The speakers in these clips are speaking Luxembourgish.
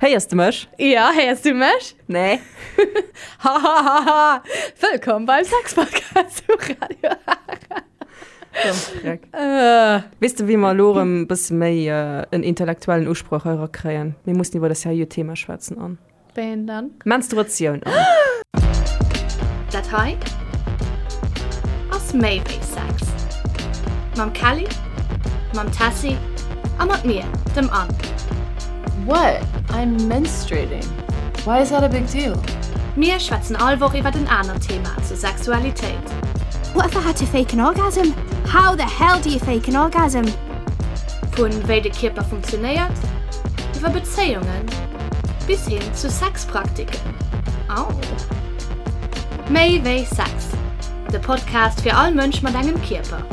Héiers de mech? Ja, héiers du mech? Nee. Hahahaha! Wëllkomm beim Sex-Podcast um Radio Ara. Äh. Weess de, wéi mer elo erëm e bësse méi en intellektuellen Usproch hei erakréien? Mir mussen iwwer e seriö Thema schwätzen an. Wéi een dann? Menstruatioun an. Dat hei ass méi wéi Sex. Mam Kelly, mam Tessy a mat mir, dem Anne. What? I'm menstruating. Why is that a big deal? Mir schwätzen all Woch iwwert en anert Thema zur Sexualitéit. What if I had to fake an orgasm? How the hell do you fake an orgasm? Vun wéi de Kierper funktionéiert, iwwer Bezéiungen bis hin zu Sexpraktiken. Au! Méi wéi Sex, de Podcast fir all Mënsch mat engem Kierper.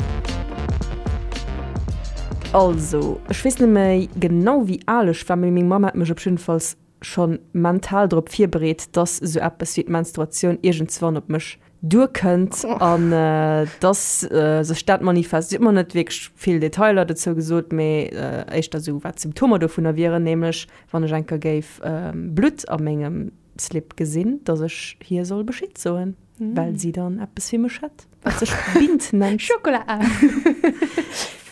Also, ech weess net méi genau wéi al ech war, mee meng Mamm hat mech op jiddefalls schonn mental drop virbereet, dass esou eppes wéi d'Menstruatioun iergendswann op mech duerkënnt an dass sech dat manifest. Si huet mer net wierklech vill Detailer dozou gesot, mee éischter esou wat d'Symptomer dovunner wieren, nämlech wann ech eng Kéier géif Blutt a mengem Slip gesinn, dass ech hir soll Bescheed soen, well si dann eppes fir mech hätt, wat sech Bint nennt. Schokola!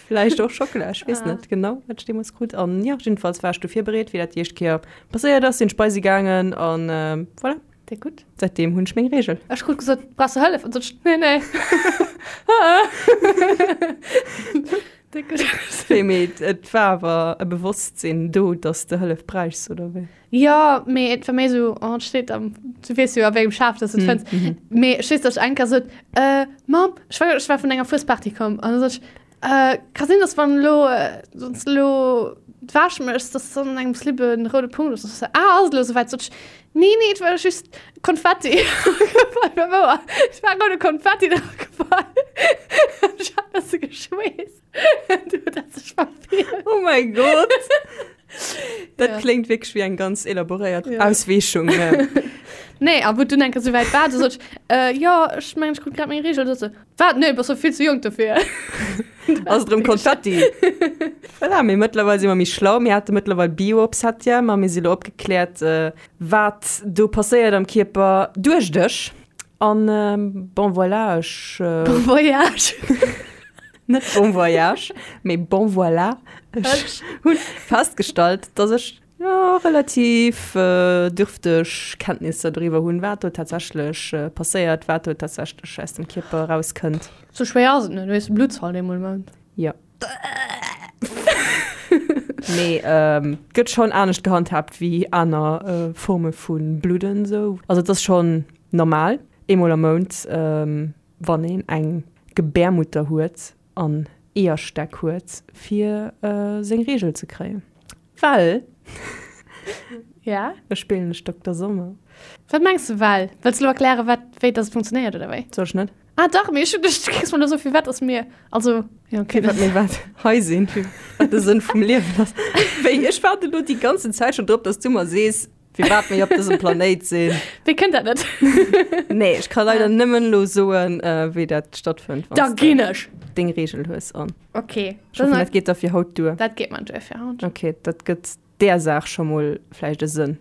Vläicht och Schokola, ech weess net genau, wat ech deemools krut. An jo, jiddefalls war ech du virbereet, wéi dat déi éischt Kéier passéiert ass, sinn ech bei si gaangen an voilà. Déck gutt. Säitdeem hunn ech meng Reegel. Ech krut gesot, brauchs du Hëllef? An sot ech, nee, nee. Déck gutt. Wéi, mee et war awer e Bewosstsinn do, dass de Hëllef bräichs, oder wéi? Jo, mee et war méi esou, oh, et steet am, du weess jo a wéi engem Schaf dass du et fënns. Mee ech weess, dass ech eng Kéier sot, äh, Mamm, ech war, ech war vun enger Fuesparty komm an da sot ech, äh, ka sinn, dass wann elo, wann s de elo d'Wäsch méchs, dass dann an engem Slip e roude Punkt ass. An sot se, ah, ass et elo esouwäit? Sot ech, nee, nee, et war just Konfetti. War wouer, et war roude Konfetti dra gefall. Ech hat e bësse geschweesst. Du huet dat sech verfehlt. Oh mäi Gott! Dat Ja. kléngt wierklech wéi eng ganz elaboréiert Ja. Ausweechung. Nee, a wou dunn eng Kéier souwäit war, du sot ech, äh, jo, ech mengen, ech krut grad meng Reegel. Du sot se, wat? Nee, bass jo vill ze jonk dofir. Ass et erëm Konfetti? Voilà, mee mëttlerweil si mer méi schlau. Mir hate mëttlerweil Bio op Septième a mir si lo opgekläert, äh, wat do passéiert am Kierper duerch dech. An bon voilà, ech. Bon voyage! Net bon voyage, mee bon voilà. Ech hunn festgestallt, dass ech jo relativ dürfteg Kenntnisser doriwwer hunn, wat do tatsächlech passéiert, wat do tatsächlech aus dem Kierper erauskënnt. Sou schwéier ass et net, du hues Blutz halt eemol Mount. Jo. Mee gëtt schonn anescht gehandhaabt wéi aner Forme vu Bludden sou. Also et ass schonn normal, eemol am Mount wann een eng Gebärmutter huet an Eeërstäck huet, fir seng Reegel ze kréien. Well. Ja? Ech spillen ech Dokter Sommer. Wat mengs de well? Wëlls de elo erklären, wat, wéi dass et funktionéiert oder wéi? Soll ech net? Ah dach, mee ech hunn dech, du kriss mer elo esou firwat dass mir, also, ja okay. Firwat mir wat hei sinn, firwat de Sënn vum Liewen ass. Wéi, ech waarden elo déi ganzen Zäit schonn drop, dass du mer sees, Firwat mir op dësem Planéit sinn. Wéi kënnt dat net? Nee, ech ka leider nëmmen elo soen, wéi dat stattfënnt, wann Da s de ginn ech! deng Reegel hues an. Okay. Ech hoffen, dat geet da fir haut duer. Dat geet mer duer fir haut. Okay, dat gëtt där Saach scho mol vläicht e Sënn,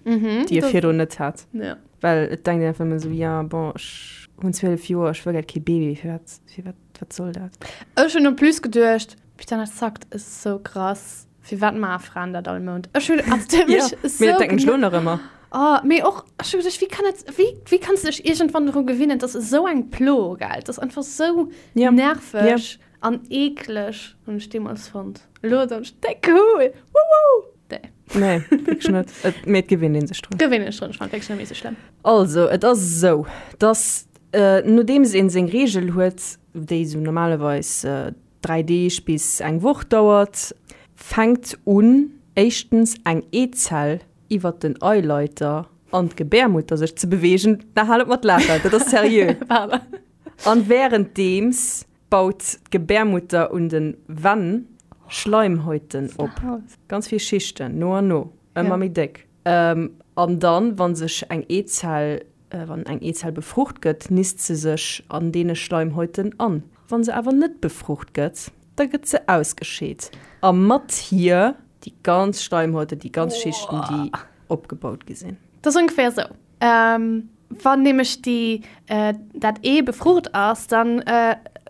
déi e virdrun net hat. Ja. Well et denkt een einfach ëmmer esou, ja bon, ech hunn 12 Joer, ech wëll grad kee Baby, firwat, firwat, wat soll dat? Ech hunn en plus geduecht, putain, dat zackt esou krass. Firwat maache Fraen dat all Mount? Ech hunn also dat huet Ja, mech mee dat sou denken ech lo nach ëmmer. Oh, mee och, ech hu geduecht, wéi kann et, wéi, wéi kanns du dech iergendwann dru gewinnen? Dat ass esou eng Plo, gell? Dat ass einfach sou Ja. nerveg Ja. an eekleg, hunn ech deemools fonnt. Elo soen ech, déck cool, wouhou! Nee. Nee, wierklech net. Et, mee et gewinnt ee sech drun. Gewinnt een sech drun, ech fannen et wierklech net méi sou schlëmm. Also, et ass esou, dass, nodeems een seng Reegel huet, déi esou normalerweis 3 Deeg bis eng Woch dauert, fänkt un, éischtens eng Eezell iwwert den Eileiter an d'Gebärmutter sech ze beweegen, na hal op mat laachen, dat ass seriö, an wärenddeems baut d'Gebärmutter un de Wänn Schleimhäuten op, ganz vill Schichten, no an no, ëmmer méi déck. An dann, wa sech eng Eezell Wann eng Eezell befrucht gëtt, nist se sech an deene Schleimhäuten an. Wann se awer net befrucht gëtt, da gëtt se ausgescheet a mat hir déi ganz Schleimhäuten, déi ganz Schichten, déi. opgebaut gi sinn. Dat ass ongeféier esou, Wann nämlech déi, dat Ee befrucht ass, dann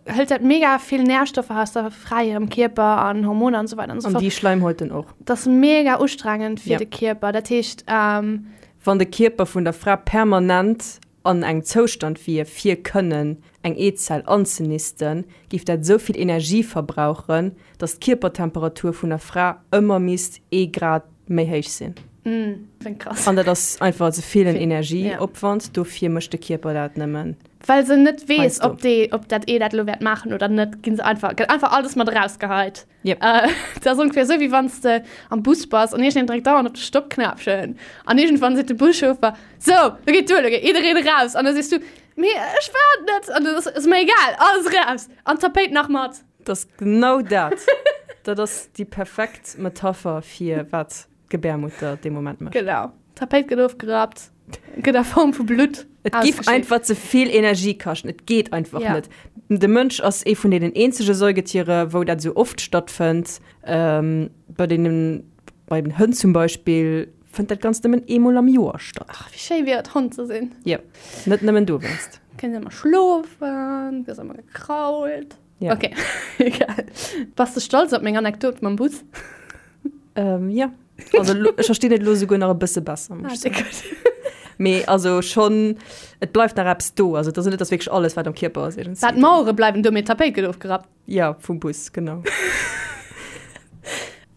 hëlt dat mega vill Närstoffer aus der Fra hirem Kierper an Hormoner an esou weider an esou fort. An déi Schleimhäuten och. Dat ass mega ustrengend fir de Kierper. Dat heescht. Wann de Kierper vun der Fra permanent an engem Zoustand wier, fir kënnen eng Eezell anzenisten, géif dat esou vill Energie verbrauchen, datt d'Kierpertemperatur vun der Fra ëmmer misst ee Grad méi héich sinn. Krass. An dat ass einfach ze vill en Energieopwand, dofir mécht de Kierper dat nëmmen. Well se net weess, ob dee, ob dat Ee dat elo wäert maachen oder net, ginn se einfach, gëtt einfach alles mat erausgeheit. Yep. Dat ass ongeféier esou, wéi wann s de am Bus bass an iergendeen dréckt dauernd op de Stoppknäppchen an iergendwann seet de Buschauffer, Sou, lo geet duer, lo geet jiddereen eraus. An da sees du, Mee ech war et net. An dann ass, Ass mer egal, alles eraus an d'Tapéit nach mat. Dat ass genau dat. Dat ass déi perfekt Metapher fir wat d'Gebärmutter dee Moment mécht. Genau. D'Tapéit gëtt ofgerappt, gëtt a Form vu Blutt Et giff ausgeschéckt. einfach ze vill Energie kaschten. Et geet einfach Ja. net. De Mënsch ass ee vun deenen eenzege Säugetiere, wou dat esou oft stattfënnt. Bei deenen, bei den Hënn zum Beispill, fënnt dat Ganzt nëmmen eemol am Joer statt. Ach, wéi schéi wier et, Hond ze sinn. Jo, net nëmmen dowéinst. Kënns ëmmer schlofen, gëss ëmmer gekrault. Ja. Okay, egal. Bass de stolz op meng Anekdot mam Bus? Ähm, ja. Also lo, ech verstinn et lo souguer nach e bësse besser, muss Ah, ech soen. gutt. Mee also schonn, et bleift nach eppes do. Also et ass net, dass wierklech alles, wat am Kierper ass, iergendwéi. Wat, d'Mauere bleiwen do, mee d'Tapéit gëtt ofgerappt. Ja, vum Bus, genau.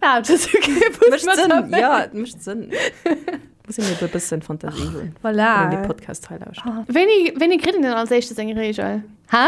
Ah, dat ass okay, Bus Mécht mat Sënn, Tapéit. ja, et mécht Sënn. Muss een eben e bëssen Fantasie hunn, Voilà. wann een dee Podcast hei lauschtert. Ah. Wéini, wéini kritt een denn als éischte seng Reegel? Hä?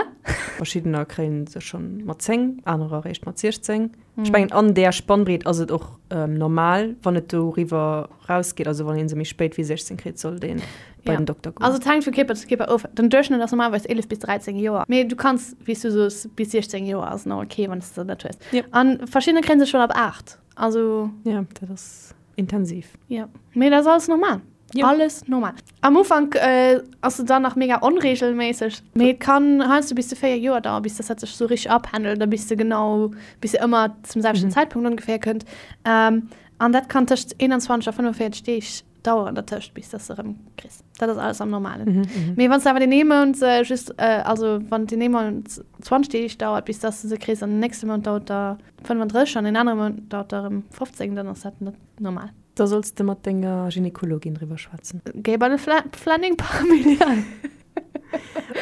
Verschiddener kréien se schonn mat 10, anerer eréischt mat 16. Ech mengen, an där Spannbreet ass et och normal, wann et doriwwer rausgeet, also wann ee se méi spéit wéi 16 kritt, sollt ee bei Ja. den Dokter goen. Also et hänkt vu Kierper zu Kierper of. Den Duerchschnëtt ass normalerweis 11 bis 13 Joer. Mee du kanns, wéi s du soos, bis 16 Joer ass nach ok, wann s de se net hues. Ja. An verschiddener kréie se schonn ab 8. Also. Ja, dat ass intensiv. Ja, mee dat ass alles normal. Ja. Alles normal. Am Ufank äh, ass se dann nach mega onregelméisseg, mee et kann heiansdo bis zu 4 Joer dauern, bis dass dat sech sou richteg apendelt, da bis de genau, bis se ëmmer zum selwechten Mhm. Zäitpunkt ongeféier kënnt. Ähm, an dat kann tëscht 21 a 45 Deeg dauern dertëscht, bis dass de erëm kriss. Dat ass alles am Normalen. Mhm, mhm. Mee wann s de awer deen ee Mount äh, just, äh, also wann deen ee Mount 20 Deeg dauert, bis dass de se kriss, an den nächste Mount dauert der 35 an deen anere Mount dauert der erëm 15, dann ass dat net normal. Da solls de mat denger Gynekologin driwwer schwätzen. Géi bei de Planning Familial.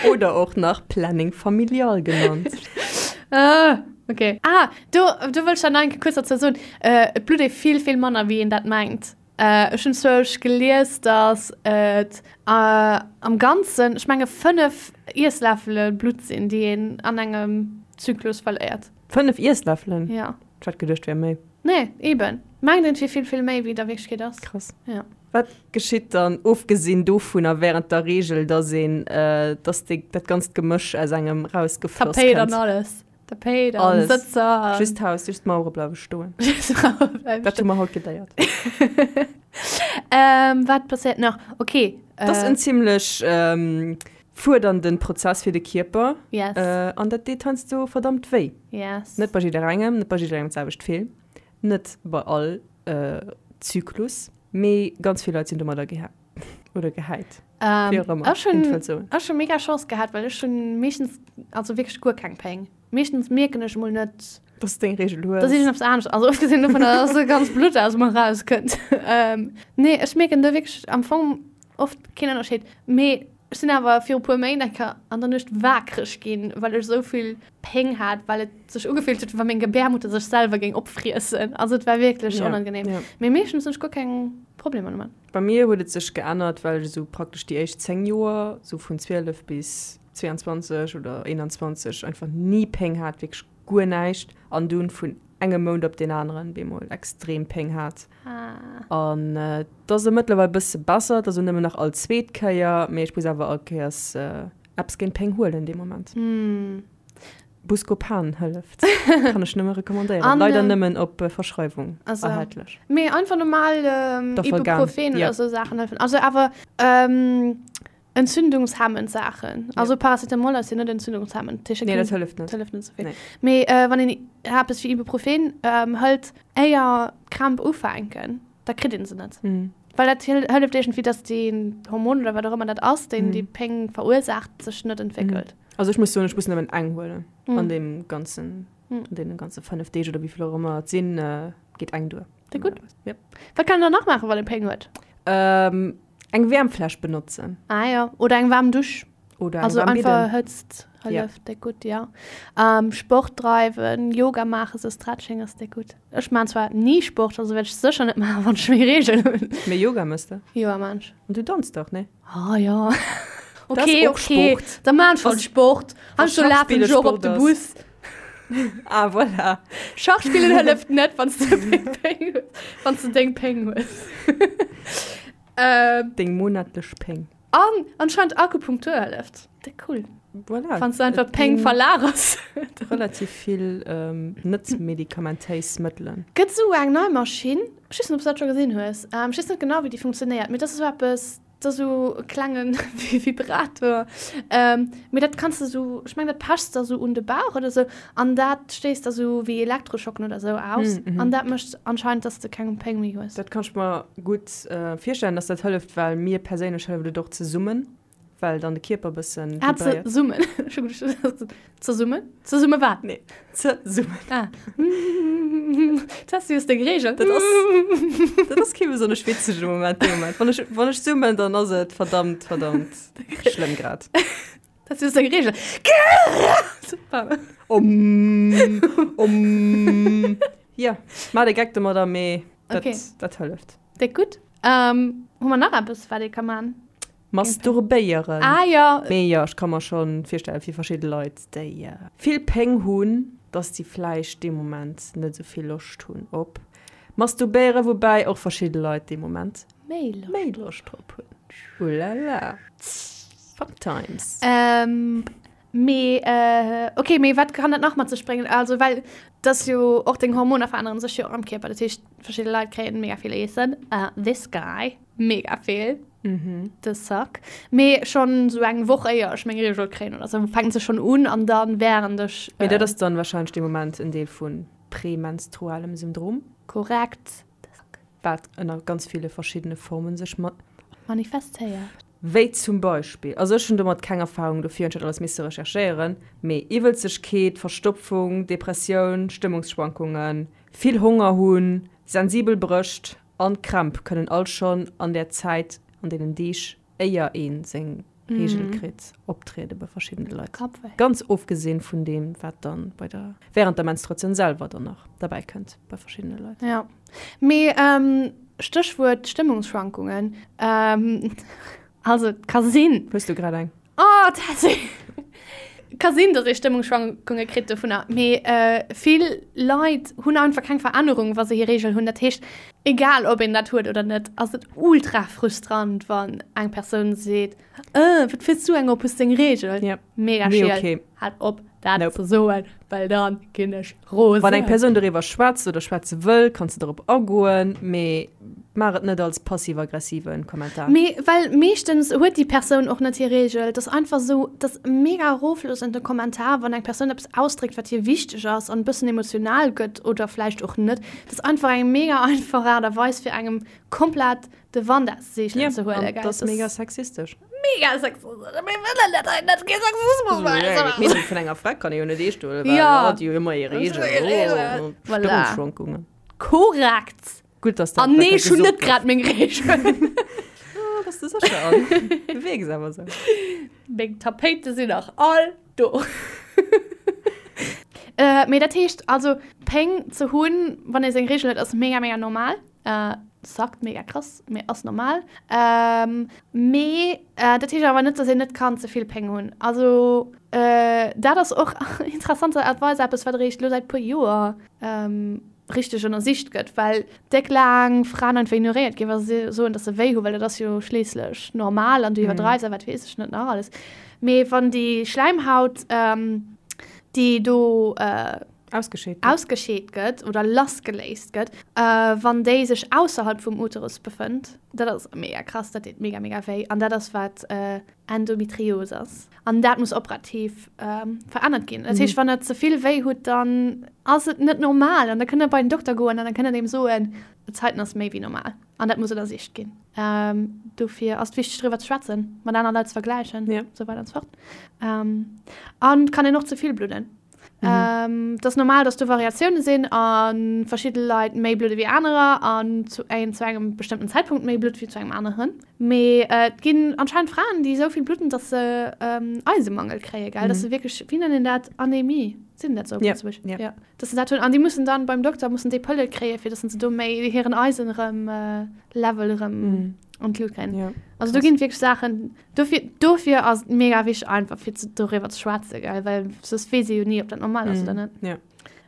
Oder och nach Planning Familial genannt. Ah, okay. Ah, do, do wëll ech dann nach eng Kéier kuerz dozou soen, Et blutt ee vill, vill manner, wéi een dat mengt. Ech hunn zwousch gelies, datt et am Ganzen, ech menge 5 Iessläffele Blutt sinn, déi een an engem Zyklus verléiert. 5 Iessläffelen? Ja. Ech hat geduecht, wär méi. Nee, eben. Mengt een, et wier vill, vill méi, wéi et a Wierklechkeet ass. Krass. Ja. Wat geschitt dann, ofgesinn dovunner, während der Reegel, dass een, dass déi, dat ganzt Gemësch aus engem rausgefloss Tapéit an kënnt? alles. Tapéit an Alles. Sëtzer an. Just d'Haus, just d'Mauere bleiwe stoen. Just d'Mauere bleiwe Dat hu stoen. mer haut geléiert. Ähm, wat passéiert nach? Okay. Dat ass en zimmlech fuerdernden Prozess fir de Kierper. Yes. An dat deet heiansdo verdammt wéi. Yes. Net bei jidderengem, net bei jidderengem d'selwecht vill, net bei all Zyklus, mee ganz vill Leit sinn domadder geha oder gehäit. Ähm, Wéi och ëmmer, ech hunn een wëllt soen. ech hu mega Chance gehat, well ech hunn meeschtens, also wierklech guer keng Péng. Meeschtens mierken ech mol net, Dass de deng Reegel hues. dass iergendeppes anescht, also ofgesinn dovun, dass e ganz Blutt aus mer rauskënnt. Ähm, nee, ech mierken do wierklech am Fong oft keen Ënnerscheed. Mee ech sinn awer viru puer Méint eng Kéier an der Nuecht waakreg ginn, well ech esou vill Péng hat, well et sech ugefillt huet, wéi wa meng Gebärmutter sech selwer géing opfriessen. Also et war wierklech Ja, onangenehm. ja. Mee meeschtens hunn ech guer keng Problemer domat. Bei mir huet et sech geännert, well ech esou praktesch déi éischt 10 Joer, esou vun 12 bis 22 oder 21, einfach ni Péng hat, wierklech guer näischt an dunn vun engem Mount op deen aneren bemol extrem Péng hat. An et ass elo mëttlerweil bësse besser, et ass elo nëmmen nach all zweet Kéier, mee ech muss awer all Kéiers eppes géint Péng huelen dee Moment. Buscopan hëlleft, kann ech nëmme recommandéieren, leider nëmmen op Verschreiwung erhältlech. Mee einfach normal Ibuprofen oder esou Saachen hëllefen. Also awer Entzündungshemmend Saachen. Also Paracetamol ass jo net entzündungshemmend. Nee, dat hëlleft net. Dat hëlleft net souvill. Nee. Mee äh, wann een eppes wéi Ibuprofen ähm, hëlt, éier d'Krämp ufänken, da kritt een se net. Mm. Well dat hëlleft iergendwéi, dass deen Hormon oder wat och ëmmer dat ass, deen déi Péng verursaacht, sech net entwéckelt. Also ech muss soen, ech muss nëmmen eng huelen an deem ganzen, an deene ganze 5 Deeg oder wéi vill och ëmmer et sinn, geet eng duer. Déi gutt. Yep. Wat kann een dann nach maachen, wann ee Péng huet? Eng Wäermfläsch benotzen. Ah jo, oder eng waarm Dusch. Oder eng Also waarm einfach Bidden. Hëtzt hëlleft déck gutt, ja. Sport dreiwen, Yoga maachen, sou Stretching ass déck gutt. Ech maan zwar ni Sport, also wäert ech sécher net maachen, wann ech meng Reegel hunn. Mee Yoga mëss de? Yoga maan ech. An du danz dach, nee? Ah jo. Dat ass Okay, och okay. Sport. Da maan ech halt Sport. Heiansdo lafen Schachspille ech och op Sport de ass. Bus. Ah, voilà. Schach spillen hëlleft net, wann du deng Péng hues. Wann du deng Péng hues. ähm. Deng monatlech Péng. An anscheinend Akupunktur hëlleft. Dat cool. Voilà. Wann du einfach Péng verlagers. Relativ vill ähm, net medikamentéis Mëttelen. Gëtt sou eng nei Maschinn, ech weess net, ob s du dat scho gesinn hues, ähm, ech weess net genau, wéi déi funktionéiert, mee dat ass esou eppes, Dat ass esou e klenge Vibrator. Mee dat kanns de esou, ech mengen dat pechs de esou un de Bauch oder esou an dat stéisst da esou wéi Elektroschocken oder esou aus an dat mécht anscheinend, dass de keng Péng méi hues. Dat kann ech mer gutt virstellen, dass dat hëlleft, well mir perséinlech hëlleft et och ze summen, well dann de Kierper e bëssen Ah, ze vibréiert. summen. Ech hu geduecht, Zesummen? Zesumme wat? Nee, zesummen. Ah. Tessy hues deng Reegel. Dat ass, dat ass kee besonnesch witzege Moment, dee Moment. Wann ech, wann ech summen, dann ass et verdammt, verdammt schlëmm grad. Tessy hues deng Reegel. Super. Om, om. Ja, maach de Geck domadder, mee dat, Okay. dat hëlleft. Déck gutt. Ähm, hu mer nach eppes, wat ee ka man? Masturbéieren. Ah jo. Mee jo, ech ka mer scho virstellen, fir verschidde Leit, déi vill Péng hunn, dass déi vläicht dee Moment net esou vill Loscht hunn op Masturbéieren, woubäi och verschidde Leit dee Moment méi Loscht drop hunn. Ulala, fun times. Mee ok, mee wat kann dat nach mat sech bréngen? Also well dass jo och deng Hormoner veränneren sech jo och am Kierper, dat heescht verschidde Leit kréien mega vill Eessen, this guy mega vill, the suck, mee schonn sou eng Woch éier ech meng Reegel kréien oder sou fänkt se schonn un an dann während ech. Mee dat ass dann wahrscheinlech dee Moment en Deel vu prämenstrualem Syndrom. Korrekt, the suck. Wat ënner ganz ville verschiddene Formen sech ma. Manifestéiert. Wéi zum Beispill, also ech hunn domat keng Erfahrung, dofir hunn ech dat alles misse recherchéieren, mee Iwwelzegkeet, Verstopfung, Depressioun, Stëmmungsschwankungen, vill Honger hunn, sensibel Brëscht an Krämp kënnen all schonn an där Zäit, an deenen Deeg éier ee seng Reegel kritt, optriede bei verschiddene Leit. Ganz ofgesinn vun deem, wat dann bei der, während der Menstruatioun selwer dann nach derbäi kënnt bei verschiddene Leit. Jo, mee Stéchwuert Stëmmungsschwankungen, also et ka sinn. Hues du grad eng? Oh, Tessy! Ka sinn, datt ee Stëmmungsschwankunge kritt dovunner, mee vill Leit hunn einfach keng Verännerung, wa se hir Reegel hunn. Dat heescht, egal ob een dat huet oder net, ass et ultra frustrant, wann eng Persoun seet, Äh, wat fiers du eng op, hues deng Reegel? Yep. Mega Nee, schiel. okay. Halt op, dat Nope. ze soen, well dann ginn ech rosen. Wann eng Persoun doriwwer schwätzt oder schwätze wëll, kanns de dorop agoen, mee maach et net als passiv-aggressive Kommentar. Mee well meeschtens huet déi Persoun och net hir Reegel. Et ass einfach esou, et ass mega erofloossend de Kommentar, wann eng Persoun eppes ausdréckt, wat hir wichteg ass an e bëssen emotional gëtt oder vläicht och net. Et ass einfach eng mega einfach Aart a Weis fir engem komplett de Wand aus de Seegelen ze huelen. Ja, dat ass mega sexistesch. Mega sexistesch. Mir wëllen dat hei net, kee Sexismus bei eis. D'Meenung vun enger Fra kann ee jo net eescht huelen, well Ja. hatt jo ëmmer hir Reegel. Voilà. Stëmmungsschwankungen. Korrekt. Gutt, dass dat An nee, ech hunn gesot net grad meng Reegel. Ah, bass de sécher? An du wierks awer sou. Meng Tapéite sinn nach all do. Mee dat heescht also, Péng ze hunn, wann ee seng Reegel huet, ass mega, mega normal. Sackt mega krass, mee ass normal. Mee dat heescht awer net, dass een net kann ze vill Péng hunn. Also dat ass och interessanterweis eppes, wat eréischt elo säit puer Joer richteg ënnersicht gëtt, well déck laang Fraen einfach ignoréiert ginn, wa se soen, dass se wéi hunn, well dat ass jo schliisslech normal an du iwwerdreifs a wat weess ech net nach alles. Mee wann déi Schläimhaut, déi do Ausgescheet gëtt. Ausgescheet gëtt oder lassgeléist gëtt, wann déi sech ausserhalb vum Uterus befënnt. Dat ass mega krass, dat deet mega, mega wéi. An dat ass, wat Endometrios ass. An dat muss operativ verännert ginn. Dat heescht, wann der ze vill wéi hutt, dann ass et net normal. An da kënnt der bei den Dokter goen an da kënnt der deem soen. Zäiten ass méi wéi normal an dat muss ënnersicht ginn. Dofir ass et wichteg driwwer ze schwätzen, mat aner Leit ze vergläichen, esou weider an esou fort. An et kann een och ze vill bludden. Et ass normal, dass do Variatioune sinn a verschidde Leit méi bludde wéi anerer an zu een zu engem bestëmmten Zäitpunkt méi blutt wéi zu engem aneren. Mee et ginn anscheinend Fraen, déi esou vill bludden, dass se Eisemangel kréie, gell? Dass se wierklech, wéi nennt een dat, Anemie, seet een dat esou op Lëtzebuerg? Ja. Ja, dass se dat hunn an déi mussen dann beim Dokter mussen déi Pëlle kréie fir dass se do méi hiren Eisen erëm Level erëm an d'Lut kréien. Ja, Also do krass. ginn et wierklech Saachen, dofir, dofir ass et mega wichteg einfach fir ze, doriwwer ze schwätzen, gell, well soss weess ee jo ni, ob dat normal ass oder net. Ja.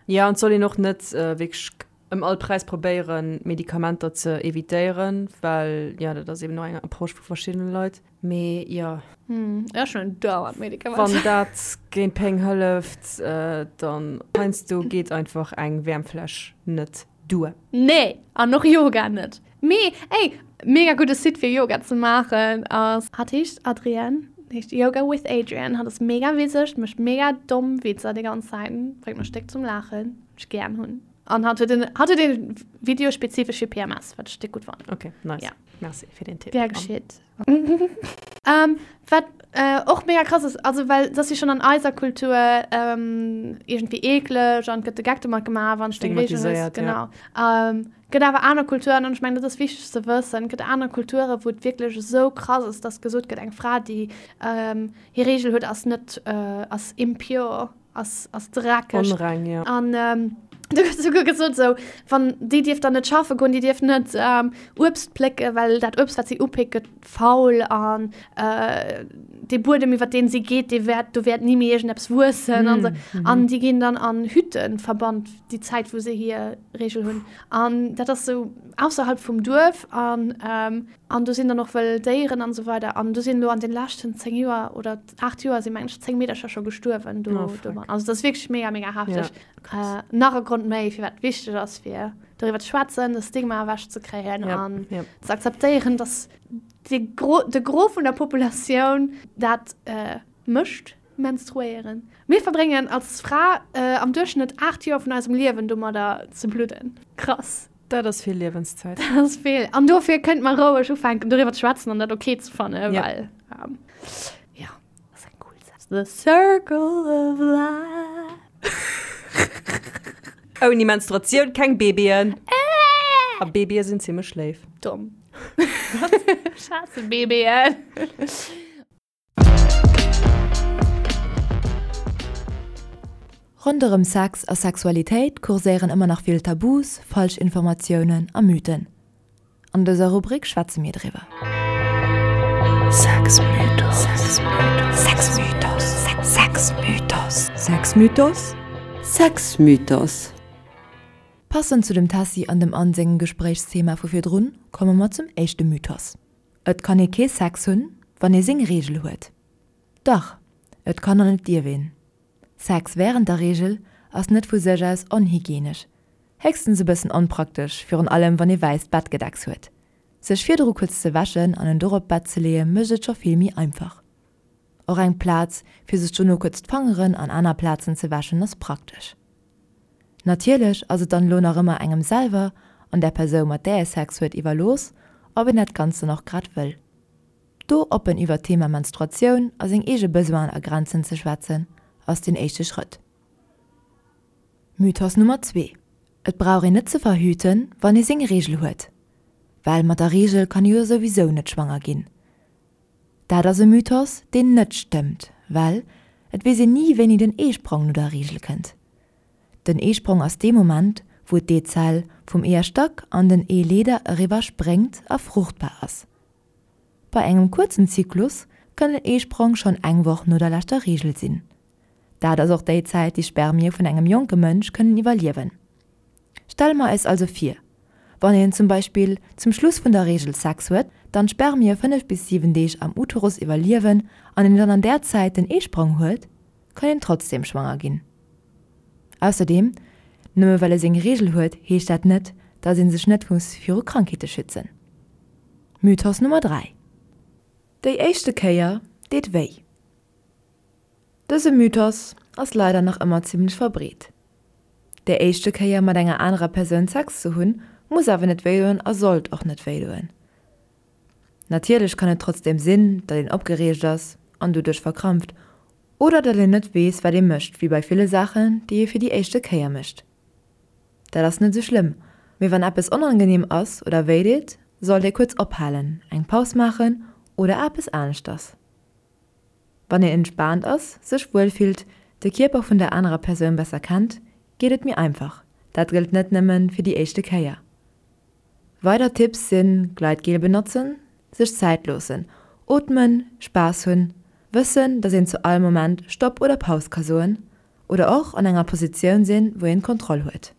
Ja, an et soll een och net äh, wierklech ëm all Präis probéieren, Medikamenter ze evitéieren, well ja, dat ass eben och eng Approche vu verschiddene Leit. Mee jo. Hm, ech hunn dauernd Medikamenter. Wann dat géint Péng hëlleft, äh, dann heiansdo geet einfach eng Wäermfläsch net duer. Nee, an och Yoga net. Mee ey, mega gudde Site fir Yoga ze maachen ass. Hatt heescht Adrienne, heescht Yoga with Adriene. Hatt ass mega witzeg, mécht mega domm Witzer déi ganz Zäit, bréngt mech déck zum Laachen, wat ech gären hunn. An hatt huet en, hatt huet e Video spezifesch fir PMS, wat ech déck gutt fannen. Ok, nice. Ja. Merci fir den Tipp. Gär geschitt. Ähm, wat äh, och mega krass ass, also well dat ass jo schonn an eiser Kultur ähm, iergendwéi eekleg an gëtt de Geck domat gemaach, wann s du eng Reegel hues. Stigmatiséiert, ja. Genau. Ähm, gëtt awer aner Kulturen, an ech mengen, dat ass wichteg ze wëssen, gëtt aner Kulture wou et wierklech esou krass ass, dass gesot gëtt, eng Fra, déi ähm, hir Reegel huet, ass net, äh, ass impure. ass, ass dreckeg. Onreng, ja. An ähm, du gëtt souguer gesot, sou, wann déi dierf dann net schaffe goen, déi dierf net ähm, Uebst plécken, well dat Uebst, wat si upéckt, gëtt faul an äh, dee Buedem, iwwer deen si geet, dee wäert, do wäert ni méi iergendeppes wuessen an sou. Mm, mhm. An déi ginn dann an Hütten verbannt, déi Zäit, wou se hir Reegel hunn. An dat ass sou ausserhalb vum Duerf an ähm, an do sinn dann och wëll Déieren an esou weider. An do sinn elo an den leschten 10 Joer oder 8 Joer sinn mengen ech 10 Meedercher scho gestuerwen do. Oh, fuck. domat. Also dat ass wierklech mega, mega hefteg. Ja, äh, nach e Grond méi, firwat et wichteg ass, fir doriwwer ze schwätzen, de Stigma ewech ze kréien Ja, an ja. ze akzeptéieren, dass de Gros, de Gros vun der Populatioun dat äh, mécht, menstruéieren. Mir verbréngen als Fra äh, am Duerchschnëtt 8 Joer vun eisem Liewen domadder ze bludden. Krass. Dat ass vill Liewenszäit. Dat ass vill. An dofir kënnt mer roueg ufänken, doriwwer ze schwätzen an dat ok ze fannen, Ja. well, ähm, ja, dat ass eng cool Saach. The circle of life. Ouni Menstruatioun keng Babyen. A Babye sinn zimmlech léif. Domm. Ech haasse Babyen. Ronderëm Sex a Sexualitéit kurséieren ëmmer nach vill Tabus, Falschinformatiounen a Mythen. An dëser Rubrik schwätze mir driwwer. Passend zu dem Tessy an dem Anne sengem Gespréichsthema vu virdrun, komme mer zum éischte Mythos. Et kann ee kee Sex hunn, wann ee seng Reegel huet. Dach, et kann an et dierf een. Sex wärend der Reegel ass net vu sech aus onhygienesch, héchstens e bëssen onpraktesch, virun allem wann ee wäisst Bettgedecks huet. Sech virdru kuerz ze wäschen an en dorop d'Bett ze leeë mécht et scho vill méi einfach. Och eng Plaz fir sech dono kuerz d'Fangeren an aner Plazen ze wäschen ass praktesch. Natierlech ass et dann elo nach ëmmer engem selwer an der Persoun mat där ee Sex huet iwwerlooss, ob een dat Ganzt dann och grad wëll. Do oppen iwwert d'Thema Menstruatioun a seng eege Besoinen a Grenzen ze schwätzen, ass deen éischte Schrëtt. Mythos Nummer 2, Et brauch een net ze verhüten, wann ee seng Reegel huet, well mat der Reegel kann ee jo souwisou net schwanger ginn. Dat ass e Mythos, deen net stëmmt, well et weess een ni wéini den Eesprong no der Reegel kënnt. Den Eesprong ass dee Moment, wou d'Eezell vum Eeërstack an den Eeleeder eriwwer spréngt a fruchtbar ass. Bei engem kuerzen Zyklus kann den Eesprong schonn eng Woch no der leschter Reegel sinn. Dat ass och déi Zäit, déi Spermie vun engem jonke Mënsch kënnen iwwerliewen. Stelle mer eis also vir, wann een zum Beispill zum Schluss vun der Reegel Sex huet, dann d'Spermie 5 bis 7 Deeg am Uterus iwwerliewen an een dann an där Zäit den Eesprong huet, kann een trotzdem schwanger ginn. Ausserdeem, nëmme well e seng Reegel huet, heescht dat net, dass ee sech net muss viru Krankheete schützen. Mythos Nummer 3, Déi éischte Kéier deet wéi. Dëse Mythos ass leider nach ëmmer zimmlech verbreet. Déi éischte Kéier mat enger anerer Persoun Sex ze hunn, Muss awer net wéidoen a sollt och net wéidoen. Natierlech kann et trotzdeem sinn, datt een opgereegt ass an doduerch verkrampft oder datt een net weess, wat ee mécht, wéi bei ville Saachen, déi ee fir déi éischte Kéier mécht. Dat ass net esou schlëmm, mee wann eppes onangeneem ass oder wéideet, sollt ee kuerz ophalen, eng Paus maachen oder eppes aneschters. Wann een entspaant ass, sech wuel fillt, de Kierper vun der anerer Persoun besser kennt, geet et méi einfach. Dat gëllt net nëmmen fir déi éischte Kéier. Weider Tipps sinn, Gleitgel benotzen, sech Zäit loossen, ootmen, Spaass hunn, wëssen, dass een zu all Moment Stopp oder Paus ka soen oder och an enger Positioun sinn, wou een d'Kontroll huet.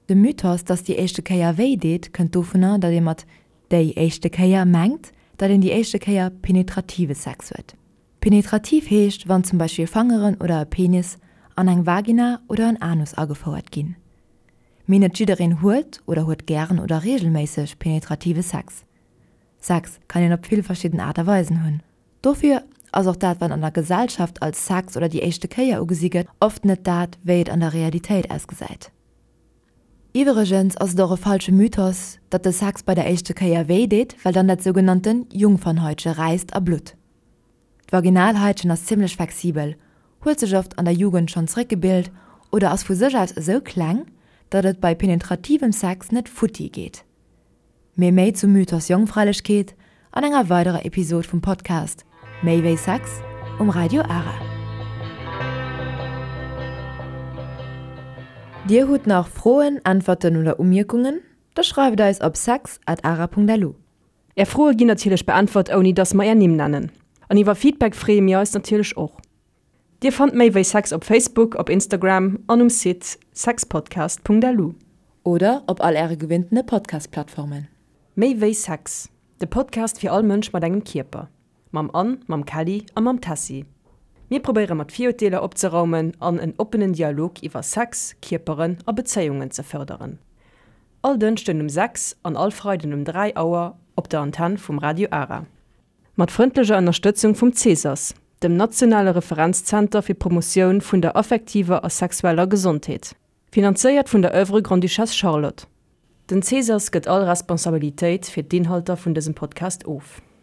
De Mythos, dass déi éischte Kéier wéi deet, kënnt dovunner, datt ee mat déi éischte Kéier mengt, datt een déi éischte Kéier penetrative Sex huet. Penetrativ heescht, wann zum Beispill Fangeren oder e Penis an eng Vagina oder en Anus agefouert ginn. Mee net jiddereen huet oder huet gären oder reegelméisseg penetrative Sex. Sex kann een op vill verschidden Aart a Weisen hunn. Dofir ass och dat wat an der Gesellschaft als Sex oder déi éischte Kéier ugesi gëtt, oft net dat wéi et an der Realitéit ausgesäit. Iwwregens ass et och e falsche Mythos, datt de Sex bei der éischte Kéier wéi deet, well dann dat sougenannten Jungfernhäutche räisst a blutt. D'Vaginalhaitchen ass zimmlech flexibel, huet sech oft an der Jugend schonn zeréckgebilt oder ass vu sech aus esou kleng, datt et bei penetrativem Sex net futti geet. Mee méi zum Mythos Jongfräilechkeet an enger weiderer Episod vum Podcast Méi wéi Sex um Radio Ara. Dir hutt nach Froen, Äntwerten oder Umierkungen? Da schreift eis op sex at ara.lu. Är Froe ginn natierlech beäntwert ouni dass mer är Nimm nennen. An iwwer Feedback freeë mir eis natierlech och. Dir fannt méi wéi Sex op Facebook, op Instagram an um Site sexpodcast.lu. Oder op all äre gewinntene Podcast-Plattformen. Méi wéi Sex, de Podcast fir all Mënsch mat engem Kierper. Mam Anne, mam Kelly a mam Tessy. Mir probéiere mat Virurteeler opzeraumen an en oppenen Dialog iwwer Sex, Kierperen a Bezéiungen ze fërderen. All Dënschden um 6 an all Freiden um 3 Auer op der Antenn vum Radio Ara. Mat frëndlecher Ënnerstëtzung vum CESAS, dem nationale Referenzzenter fir d'Promotioun vun der affektiver a sexueller Gesondheet. Finanzéiert vun der Oeuvre Grande-Duchesse Charlotte. Den CESAS gëtt all Responsabilitéit fir d'Inhalter vun dësem Podcast of.